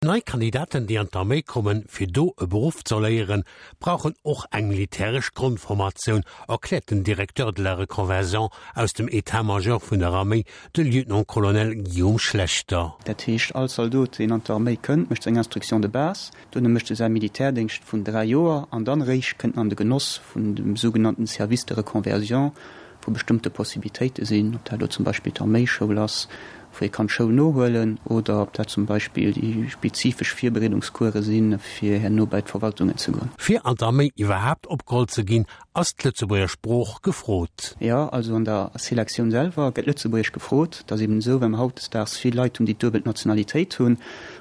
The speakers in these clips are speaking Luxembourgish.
Nei Kandidaten, déi an d'Arméi kommen, fir do e Beruff ze erléieren, brauchen och eng militäresch Grondformatioun, erkläert den Directeur de la reconversion aus dem État-major vun der Arméi, de Lieutenant-Colonel Guillaume Schlechter. Dat heescht, all Zaldot, deen an d'Arméi kënnt, mécht seng Instruction de base, duerno mécht e säi Militärdéngscht vun 3 Joer an dann eréischt kënnt en an de Genoss vun dem sougenannten Service de reconversion, wou bestëmmte Possibilitéite sinn, ob dat elo zum Beispill d'Arméischoul ass, wou ee kann d'Schoul nohuelen, oder ob dat zum Beispill déi spezifesch Virbereedungskuere sinn, fir herno bei d'Verwaltungen ze goen. Fir an d'Arméi iwwerhaapt opgeholl ze ginn, ass d'Lëtzebuerger Sprooch gefrot. Jo, also an der Selektioun selwer gëtt Lëtzebuergesch gefrot. Et ass eben esou, well mer hautdesdaags vill Leit hunn, déi d'duebel Nationalitéit hunn,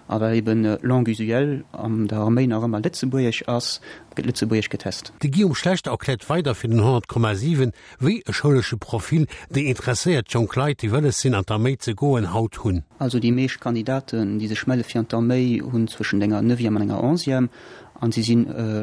a well eben Langue usuelle an der Arméi nach ëmmer Lëtzebuergesch ass, gëtt Lëtzebuergesch getest. De Guillaume Schlechter erkläert weider fir den 100,7, wéi e schoulesche Profil déi interesséiert jonk Leit, déi wëlles sinn an d'Arméi ze goen, haut hunn. Also déi meescht Kandidaten, déi sech melle fir an d'Arméi, hunn zwëschent enger Neuvième an enger Onzième an si si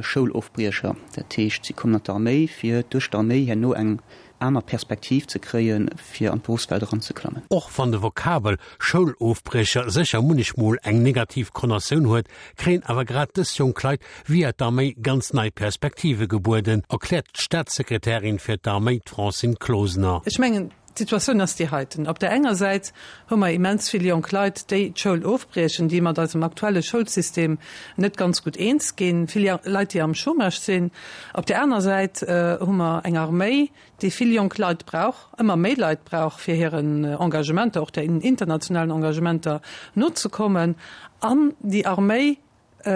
Schoulofbriecher. Dat heescht, si kommen an d'Arméi, fir duerch d'Arméi herno eng aner Perspektiv ze kréien, fir an d'Beruffswelt eranzeklammen. Och wann de Vokabel Schoulofbriecher sécher munnechmol eng negativ Konnatioun huet, kréien awer grad dës jonk Leit via d'Arméi ganz nei Perspektive gebueden, erkläert d'Staatssekretärin fir d'Arméi, d'Francine Closener. Ech mengen, d'Situatioun ass déi heiten, Op där enger Säit hu mer immens vill jonk Leit, déi d'Schoul ofbriechen, déi mat eisem aktuelle Schoulsystem net ganz gutt eens ginn, vill Leit, déi am Chômage sinn. Op där aner Säit hu mer eng Arméi, déi vill jonk Leit brauch, ëmmer méi Leit brauch, fir hiren Engagementer, och den internationalen Engagementer nozekommen. An déi Arméi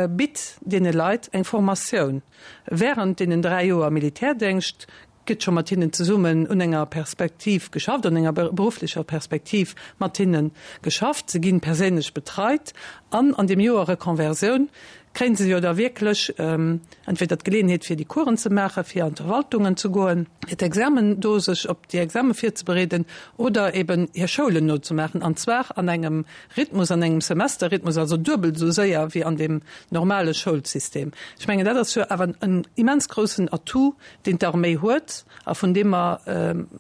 bitt deene Leit eng Formatioun während deenen 3 Joer Militärdéngscht, gëtt scho mat hinnen zesummen un enger Perspektiv geschafft, an enger berufflecher Perspektiv mat hinne geschafft. Se ginn perséinlech betreit an an deem Joer Reconversioun kréien se jo da wierklech entweder d'Geleeënheet fir déi Coursen ze maachen, fir an d'Verwaltungen ze goen, fir d'Examen do sech op déi Exame virzebereeden oder eben hir Schoulen nozemaachen, an zwar an engem Rhythmus, an engem Semesterrhythmus, also duebel esou séier wéi an deem normale Schoulsystem. Ech mengen, dat ass jo awer en immens groussen Atout, deen d'Arméi huet a vun deem mer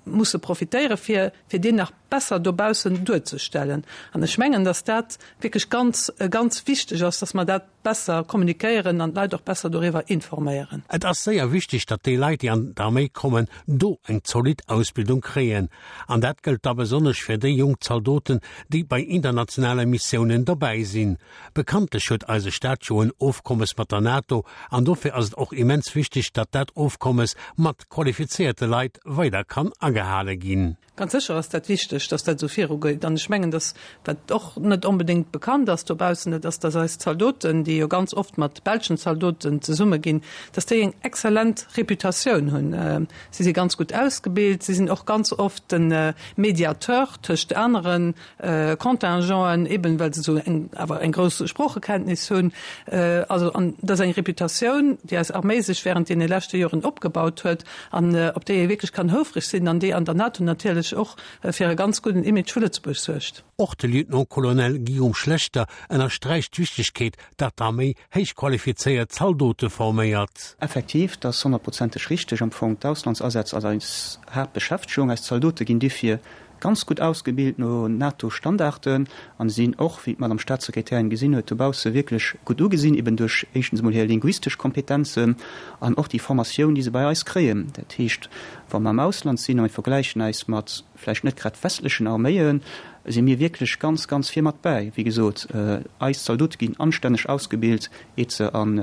musse profitéieren, fir fir deen nach besser dobaussen duerzestellen. An ech mengen, dass dat wierklech ganz, ganz wichteg ass, dass mer dat besser kommunikéieren an d'Leit och besser doriwwer informéieren. Et ass séier wichteg, datt déi Leit, déi an d'Arméi kommen, do eng zolidd Ausbildung kréien. An dat gëllt da besonnesch fir déi jonk Zaldoten, déi bei internationale Missiounen dobäi sinn. Bekanntlech huet eise Staat jo en Ofkommes mat der NATO an dofir ass et och immens wichteg, datt dat Ofkommes mat qualifizéierte Leit weider kann agehale ginn. Ganz sécher ass dat wichteg, datt dat esou virugeet. An ech mengen, datt, wat och net onbedéngt bekannt ass dobaussen, dat ass, datt eis Zaldoten, déi jo ganz oft mat belschen Zaldoten zesumme ginn, datt déi eng exzellent Reputatioun hunn. Si si ganz gutt ausgebilt, si sinn och ganz oft de Mediateur tëscht anere Contingenten, eben well se esou eng awer eng grouss Sproochekenntnis hunn. Also an dat ass eng Reputatioun, déi eis Arméi sech während deene leschte Joren opgebaut huet an op déi ee wierklech kann houfreg sinn an déi an der NATO natierlech och fir e ganz gudden Image vu Lëtzebuerg suergt. Och de Lieutenant-Colonel Guillaume Schlechter ënnersträicht d'Wichtegkeet, datt d'Arméi héich qualifizéiert Zaldote forméiert. Effektiv, dat ass honnertprozenteg richteg. Am Fong, d'Auslandsasätz ass eis Haaptbeschäftegung. Eis Zaldote ginn dofir Ganz gutt ausgebilt no NATO-Standarden an sinn och, wéi d'Madame Staatssekretärin gesinn huet, dobausse wierklech gutt ugesinn, eben duerch éischtens emol hir linguistesch Kompetenzen an och déi Formatioun, déi se bei eis kréien. Dat heescht, wa mer am Ausland sinn a mir vergläichen eis mat vläicht net grad westlechen Arméien, si mir wierklech ganz, ganz vir mat bäi. Wéi gesot, eis Zaldote ginn anstänneg ausgebilt, iert se an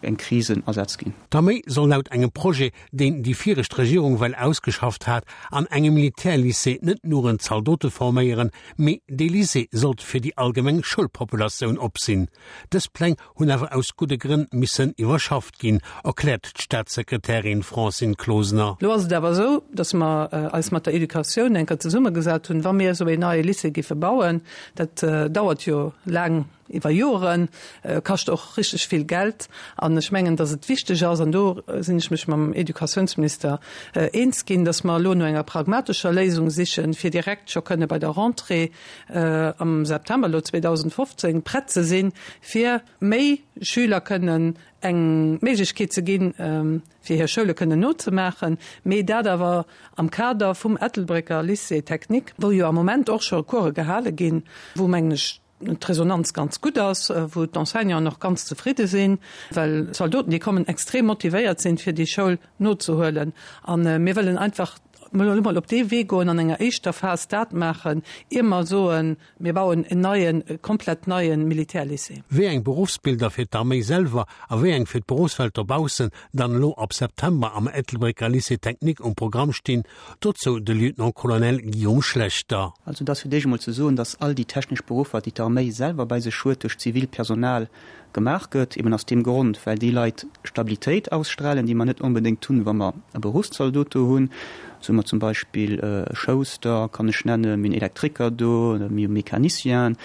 eng Krisenasätz ginn. D'Arméi soll laut engem Projet deen déi viregt Regierung well ausgeschafft hat, an engem Militärlycée net nuren Zaldote forméieren, mee dee Lycée sollt fir déi allgemeng Schoulpopulatioun op sinn. Dës Pläng hunn awer aus gudde Grënn missen iwwerschafft ginn, erkläert d'Staatssekretärin Francine Closener. Lo ass et awer esou, datt mer eis mat der Educatioun eng Kéier zesummegesat hunn, wa mir esou een neie Lycée géife bauen, dat dauert jo laang, iwwer Joren, kascht och richteg vill Geld. An ech mengen, datt et wichteg ass, an do sinn ech mech mam Educatiounsminister eens ginn, datt mer elo no enger pragmatescher Léisung sichen, fir direkt scho kënne bei der Rentrée am September elo 2015 prett ze sinn, fir méi Schüler kënnen eng Méiglechkeet ze ginn, fir hir Schoule kënnen nozemaachen, mee dat awer am Kader vum Ettelbrécker Lycée technique, wou jo am Moment och scho Course gehale ginn, wou, mengen ech, D'Resonanz ganz gutt ass, wou d'Enseignanten och ganz zefridde sinn, well d'Zaldoten, déi kommen, extrem motivéiert sinn, fir déi Schoul nozehuelen. A mir wëllen einfach elo mol op dee Wee goen, an enger éischter Phas dat maachen, ier mer soen, mir bauen en neien, e komplett neie Militärlycée. Wéi eng Beruffsbilder fir d'Arméi selwer a wéi eng fir d'Beruffswelt dobaussen dann elo ab September am Ettelbrécker Lycée technique um Programm stinn, Dozou de Lieutenant-Colonel Guillaume Schlechter. Also et ass fir d'éischt emol ze soen, datt all déi technesch Beruffer, déi d'Arméi selwer bei sech huet, duerch zivilt Personal gemaach gëtt, eben aus deem Grond, well déi Leit Stabilitéit ausstrahlen, déi mer net onbedéngt hunn, wa mer e Beruffszaldot do hunn. Esou hu mer zum Beispill e Schouster, kann ech nennen, mir hunn Elektriker do, mir hu Mecanicien.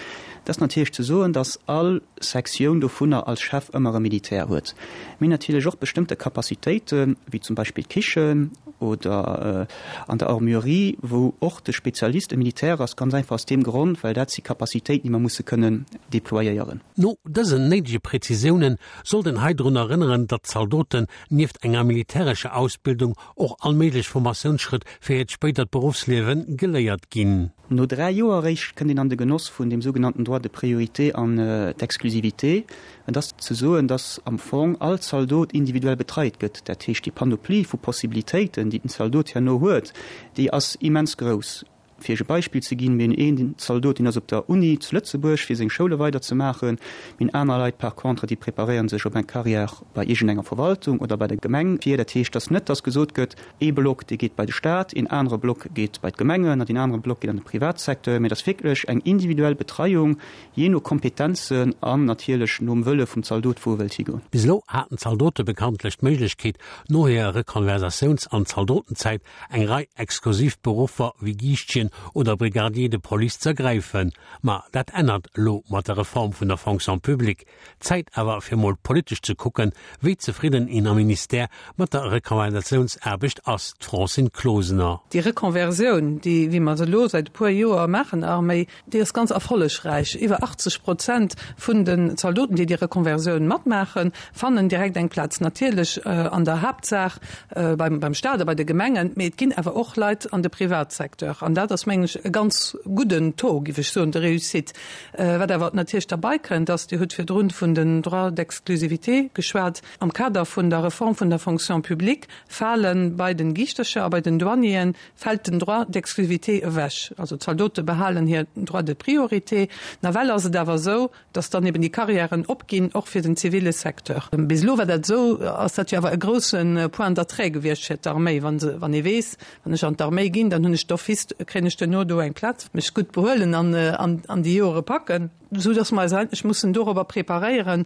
Et ass natierlech ze soen, datt all Sektioun dovunner als Chef ëmmer e Militär huet. Mir hunn natierlech och bestëmmte Capacitéiten, wéi zum Beispill d'Kichen oder an der Armurerie, wou och de Spezialist e Militär ass, ganz einfach aus deem Grond, well dat si Capacitéiten, déi mer musse kënnen déployéieren. No dësen néidege Präzisiounen sollt een hei drun erënneren, datt d'Zaldoten nieft enger militärescher Ausbildung och all méiglech Formatiounsschrëtt fir hiert spéidert Beruffsliewe geléiert ginn. No 3 Joer eréischt kënnt een an de Genoss vun deem sougenannten Droit de priorité an d'Exclusivité. Et ass ze soen, dass am Fong all Zaldot individuell betreit gëtt. Dat heescht, déi Panoplie vu Possibilitéiten, déi den Zaldot herno huet, déi ass immens grouss. Fir Iech e Beispill ze ginn, Mir hunn een Zaldot, deen ass op der Uni zu Lëtzebuerg, fir seng Schoule weiderzemaachen. Mir hunn aner Leit par contre, déi preparéiere sech op eng Carrière bei iergendenger Verwaltung oder bei der Gemeng vir. Dat heescht, dass net, dass gesot gëtt, Ee Block, dee geet bei de Staat, een anere Block geet bei d'Gemengen an deen anere Block geet an de Privatsecteur. Mee et ass wierklech eng individuell Betreiung, jee no Kompetenzen an natierlech nom Wëlle vum Zaldot, wou e wëllt higoen. Bis elo haten d'Zaldote bekanntlech d'Méiglechkeet, no hirer Rekonversatiouns an Zaldotenzäit eng Rei exklusiv Beruffer wéi Giischtjen oder Brigadier de police z'ergräifen. Ma dat ännert elo mat der Reform vun der Fonction publique. Zäit awer fir mol politesch ze kucken, wéi zefridden een am Ministère mat der Rekonversiounsaarbecht ass, d'Francine Closener. Déi Rekonversioun, déi wéi mer se elo säit e puer Joer maachen, Arméi, déi ass ganz erfollegräich. Iwwer 80 Prozent vun den Zaldoten, déi déi Rekonversioun matmaachen, fannen direkt eng Plaz. Natierlech an der Haaptsaach beim Staat a bei de Gemengen, mee et ginn awer och Leit an de Privatsecteur. An dat ass, mengen ech, e ganz gudden Taux, géif ech soen, de réussite. Wat awer natierlech derbei kënnt, ass, Dir hutt virdrun vun den Droits d'exclusivité geschwat, Am Kader vun der Reform vun der Fonction publique fale bei den Giischtercher a bei den Douanieren fält den Droit d'exclusivité ewech. Also d'Zaldote behalen hir Droit de priorité. Nawell ass et awer esou, dass dann eben déi Carrièren opginn, och fir den zivile Secteur. Bis elo war dat esou, ass dat jo awer e grousse Point d'attrait gewiescht fir d'Arméi, wa se, wann ee weess, Wann ech an d'Arméi ginn, dann hunn ech d'office, kréien ech duerno do eng Plaz, mech gutt behuelen an an déi Joere packen, esou datt mer eis eigentlech mussen dorobber preparéieren,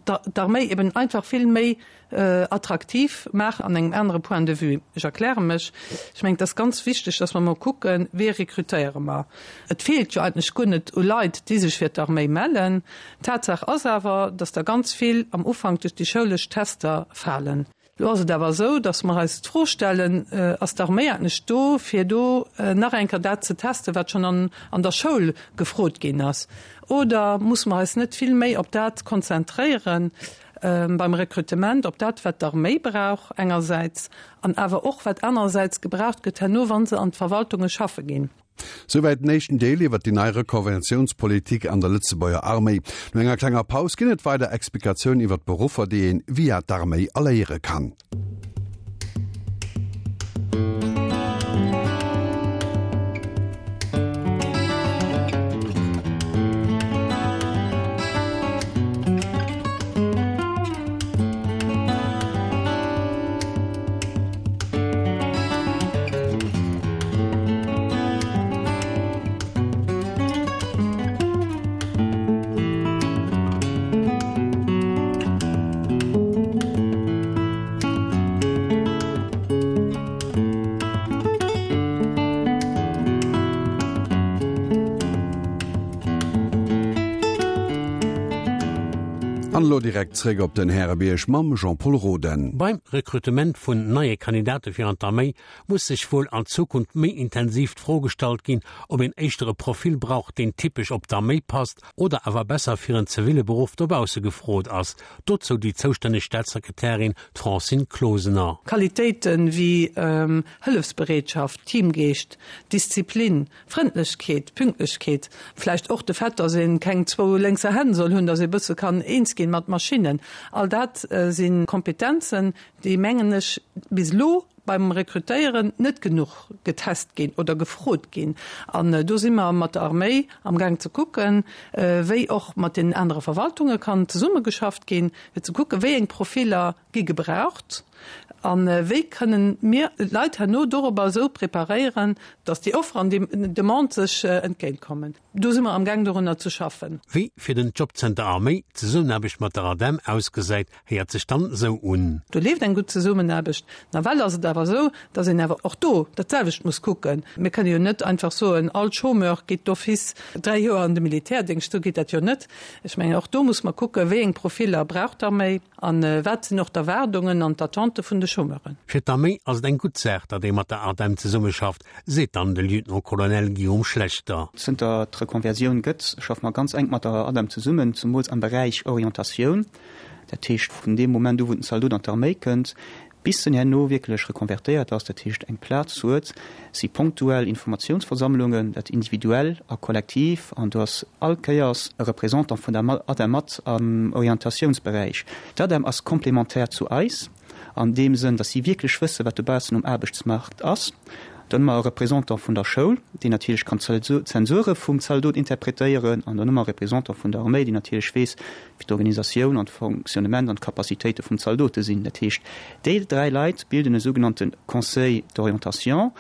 d'Arméi eben einfach vill méi attraktiv maachen an engem anere Point de vue. Ech erkläre mech, Ech mengen, et ass ganz wichteg, datt mer emol kucken, Wee rekrutéiere mer? Et feelt jo eigentlech guer net u Leit, déi sech fir d'Arméi mellen. Tatsaach ass awer, datt der ganz vill am Ufank duerch déi schoulesch Tester falen. Elo ass et awer esou, datt mer eis d'Fro stellen, Ass d'Arméi eigentlech do, fir do nach eng Kéier dat ze testen, wat schonn an der Schoul gefrot ginn ass? Oder musse mer eis net vill méi op dat konzentréieren beim Rekrutement, op dat, wat d'Arméi brauch engersäits an awer och wat anerersäits gebraucht gëtt herno, wa se an d'Verwaltunge schaffe ginn? Souwäit den éischten Deel iwwer déi nei Rekonventiounspolitik an der Lëtzebuerger Arméi. No enger klenger Paus ginn et weider Explikatiounen iwwer d'Beruffer, déi een via d'Arméi erléiere kann. An elo direkt zréck op den Härebierg mam Jean-Pol Roden. Beim Rekrutement vun neie Kandidate fir an d'Arméi muss sech wuel an Zukunft méi intensiv d'Fro gestallt ginn, ob een éischter e Profil brauch, deen typesch op d'Arméi passt oder awer besser fir en ziville Beruff dobausse gefrot ass. Dozou déi zoustänneg Staatssekretärin, d'Francine Closener. Qualitéite wéi Hëllefsbereetschaft, Teamgeescht, Disziplin, Frëndlechkeet, Pünktlechkeet, vläicht och de Fait, datt ee keng zwou lénkser Hänn soll hunn, datt ee bësse kann eens ginn mat Maschinnen, all dat si Kompetenzen, déi, mengen ech, bis elo beim Rekrutéieren net genuch getest ginn oder gefrot ginn. An do si mer mat der Arméi amgaang ze kucken, wéi och mat deenen anere Verwaltunge kann zesummegeschafft ginn, fir ze kucken, wéi eng Profiller gi gebraucht a wéi kënnen mir d'Leit herno dorobber esou preparéieren, datt déi Offer an déi Demande sech entgéintkommen. Do si mer amgaang dorunner ze schaffen. Wéi fir den Jobcenter Arméi d'Zesummenaarbecht mat der ADEM ausgesäit, héiert sech dann esou un. Do leeft eng gutt Zesummenaarbecht. Nawell ass et awer esou, datt een awer och do dat selwecht muss kucken. Mir kënne jo net einfach soen, all Chômeur geet d'office 3 Joer an de Militärdéngscht. Esou geet dat jo net. Ech mengen, och do muss mer kucken, wéi eng Profiller brauch d'Arméi a wat sinn och d'Erwaardungen an d'Attente vun de Chômeuren. Fir d'Arméi ass et eng gutt Saach, datt ee mat der ADEM zesummeschafft, seet dann de Lieutenant-Colonel Guillaume Schlechter. Zënter et d'Reconversioun gëtt, schaffe mer ganz enk mat der ADEM zesummen, zemools am Beräich Orientatioun. Dat heescht, vun deem Moment u wou den Zaldot an d'Arméi kënnt, bis en herno wierklech rekonvertéiert ass, dat heescht eng Plaz huet, si ponktuell Informatiounsversammlungen, dat individuell a kollektiv, an do ass all Kéiers e Représentant vun der ADEM mat am Orientatiounsberäich. D'ADEM ass complémentaire zu eis. An deem Sënn, datt si wierklech wëssen, wat dobaussen um Aarbechtsmaart ass. Dann hu mer e Représentant vun der Schoul, deen natierlech kann d'Zensure vum Zaldot interpretéieren. An dann hu mer e Représentant vun der Arméi, deen natierlech weess, wéi d'Organisatioun an d'Fonctionnement an d'Capacitéite vum Zaldote sinn. Dat heescht, déi dräi Leit bilden e sougenannte Conseil d'orientation,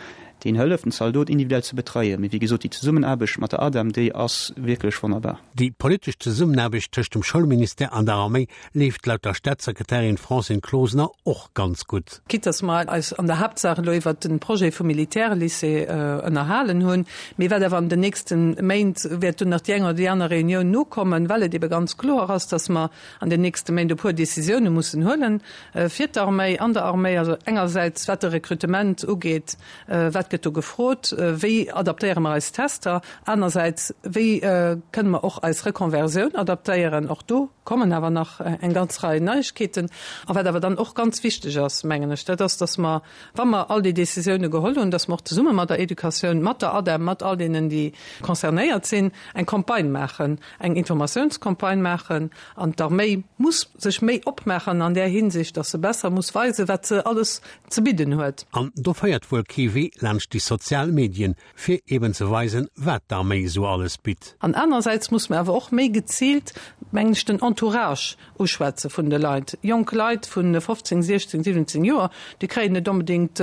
deen hëlleft, den Zaldot individuell ze betreien. Mee wéi gesot, déi Zesummenaarbecht mat der ADEM, déi ass wierklech wonnerbar. Déi politesch Zesummenaarbecht tëscht dem Schoulministère an der Arméi leeft laut der Staatssekretärin Francine Closener och ganz gutt. Quitte dass mer eis an der Haaptsaach elo iwwert de Projet vum Militärlycée ënnerhalen hunn, mee wat awer an den nächste Méint wäert do nach déi eng oder déi aner Reunioun nokommen, well et ebe ganz kloer ass, dass mer an den nächste Méint e puer Décisioune mussen huelen fir d'Arméi, an der Arméi, also engersäits wat de Rekrutement ugeet, wat gëtt do gefrot, wéi adaptéiere mer eis Tester, anersäits wéi kënne mer och eis Reconversioun adaptéieren, och do kommen awer nach eng ganz Rei Neiegkeeten. A wat awer dann och ganz wichteg ass, mengen ech, dat ass, dass mer, wa mer all déi Décisioune geholl hunn, dass mer och zesumme mat der Educatioun, mat der ADEM, mat all deenen, déi concernéiert sinn, eng Campagne maachen, eng Informatiounscampagne maachen. An d'Arméi muss sech méi opmaachen an där Hinsicht, dass se besser muss weisen, wat se alles ze bidden huet. An do féiert wuel kee Wee laanscht déi sozial Medien, fir eben ze weisen, wat d'Arméi esou alles bitt. An anerersäits muss mer awer och méi geziilt, mengen ech, den Entourage uschwätze vun de Leit. Jonk Leit vu 15, 16, 17 Joer, déi kréien net onbedéngt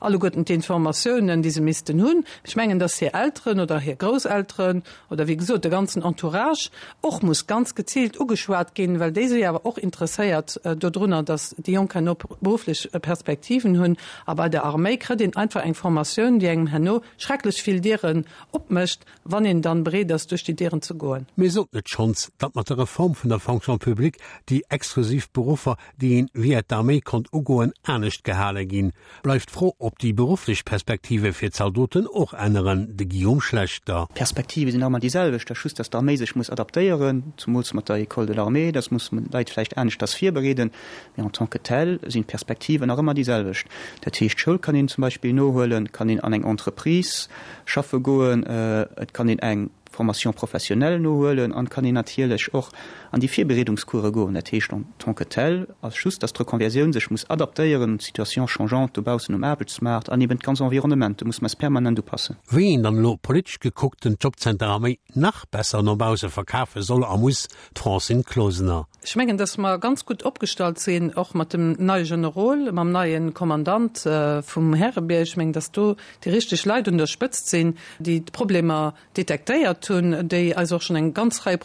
alleguerten d'Informatiounen, déi se missten hunn. Ech mengen, dass hir Elteren oder hir Grousselteren oder wéi gesot de ganzen Entourage och muss ganz geziilt ugeschwat ginn, well déi si awer och interesséiert dodrunner, dass déi Jonk herno berufflech Perspektiven hunn. A bei der Arméi kritt een einfach eng Formatioun, déi engem herno schrecklech vill Dieren opmécht, wann een dann bereet ass, duerch déi Dieren ze goen. Mir soten et schonns, datt mat der Reform vun der Fonction publique déi exklusiv Beruffer, déi een via d'Arméi konnt ugoen, anescht gehale ginn. Bleift d'Fro, ob déi berufflech Perspektive fir d'Zaldoten och änneren. De Guillaume Schlechter. D'Perspektive sinn nach ëmmer déi selwecht, dass just, dass d'Arméi sech muss adaptéieren, zumools mat der École de l'armée, dass muss man d'Leit vläicht aneschters virbereeden, mee en tant que tel sinn d'Perspektiven nach ëmmer déi selwecht. Dat heescht, d'Schoul kann een zum Beispill nohuelen, kann een an eng Entreprise schaffe goen, et kann een eng Formation professionnelle nohuelen an kann een natierlech och an déi Virbereedungscourse goen. Dat heescht en tant que tel ass just, dass d'Reconversioun sech muss adaptéieren un d'Situation changeante dobaussen um Aarbechtsmaart an eben d'ganz Environnement. Do muss mer eis permanent upassen. Wéi een dann elo politesch gekuckt den Jobcenter Arméi nach besser no bausse verkafe soll a muss, d'Francine Closener. Ech mengen, dass mer ganz gutt opgestallt sinn, och mat dem neie Generol, mam neie Kommandant vum Härebierg. Ech mengen, dass do déi richteg Leit un der Spëtzt sinn, déi d'Problemer detektéiert hunn. gehat hunn, déi eis och schonn eng ganz Rei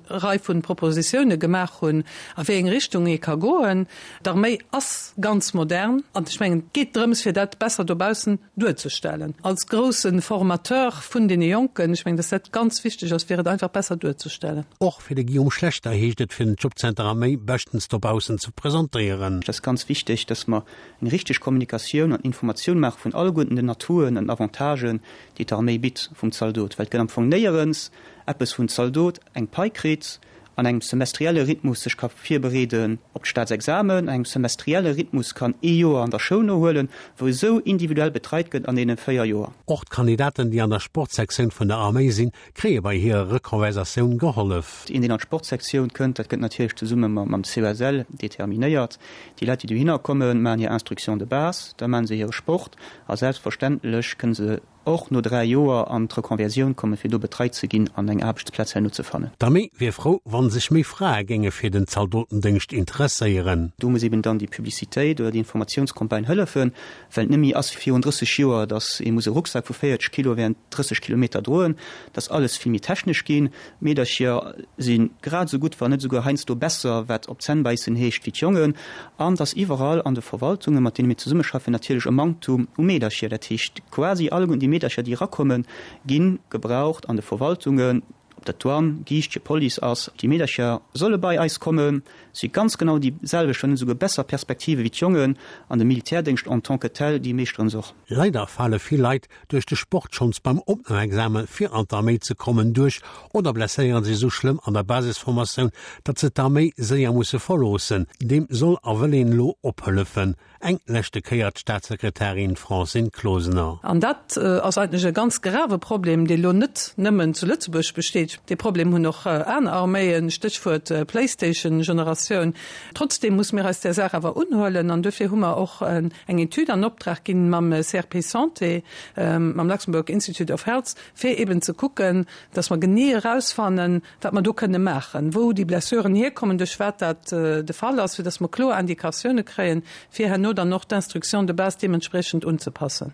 Rei vu Propositioune gemaach hunn, a wéi eng Richtung ee ka goen. D'Arméi ass ganz modern an ech mengen, et geet drëms, fir dat besser dobaussen duerzestellen. Als grousse Formateur vun deene Jonken, ech mengen, dass dat ganz wichteg ass, fir et einfach besser duerzestellen. Och fir de Guillaume Schlechter heescht et, fir den Jobcenter Arméi beschtens dobaussen ze presentéieren. Et ass ganz wichteg, dass mer eng richteg Kommunikatioun an Informatioun maache vun alleguerten den Atouen an Avantagen, déi d'Arméi bitt vum Zaldot, well et gëtt am Fong néierens eppes, wou en Zaldot eng Pai kritt, an engem semestrielle Rhythmus sech ka virbereeden op d'Staatsexamen, an engem semestrielle Rhythmus kann ee Joer an der Schoul nohuelen, wou esou individuell betreit gëtt an deene 4 Joer. Och d'Kandidaten, déi an der Sportsektioun vun der Arméi sinn, kréie bei hirer Rekonversatioun gehollef. Een, deen an d'Sportsektioun kënnt, dat gëtt natierlech zesumme mam COSL determinéiert. Déi Leit, déi dohinner kommen, maachen hir Instruction de base, da maache se hire Sport a selbstverständlech kënne se och no 3 Joer an d'Reconversioun kommen, fir do betreit ze ginn an eng Aarbechtsplaz herno ze fannen. D'Arméi wier frou, wa sech méi Frae géinge fir den Zaldotendéngscht interesséieren. Do muss eben dann déi Publicitéit oder déi Informatiounscampagne hëllefen, well et net méi ass wéi virun 30 Joer, datt ee muss e Rucksak vu 40 Kilo während 30 Kilometer droen. Et ass alles vill méi technesch ginn. D'Meedercher si grad esou gutt, wann net esouguer heiansdo besser, wat op d'Zänn bäissen heescht, wéi d'Jongen. An et ass iwwerall an de Verwaltungen, mat deene mir zesummeschaffen, natierlech e Manktum u Meedercher. Dat heescht, quasi alleguerten déi Meedercher, déi erakommen, gi gebraucht an de Verwaltungen, ob dat Douane, Giischtje, Police ass. Déi Meedercher solle bei eis kommen, si ganz genau déi selwecht, wann net esouguer besser Perspektive wéi d'Jongen. An de Militärdéngscht en tant que tel, déi meeschteren se och. Leider fale vill Leit duerch de Sport schonns beim Opnamexamen fir an d'Arméi ze kommen duerch oder blesséieren sech esou schlëmm an der Basisformatioun, datt se d'Arméi séier musse verloossen. Deem soll a wëll een elo ophëllefen. Eng leschte Kéier d'Staatssekretärin Francine Closener. An dat ass eigentlech e ganz grave Problem, dee lo net nëmmen zu Lëtzebuerg besteet. Dee Problem hunn och aner Arméien, Stéchwuert Playstation-Generatioun. Trotzdeem muss mir eis där Saach awer unhuelen an duerfir hu mer och eng Etüd an Optrag ginn mam CRP Santé, mam Luxembourg Institute of Health, fir eben ze kucken, dass mer genee erausfannen, wat mer do kënne maachen, wou déi Blessuren hierkommen, duerch wat dat de Fall ass, fir dass mer kloer Indikatioune kréien, fir herno dann och d'Instruction de base deementspriechend unzepassen.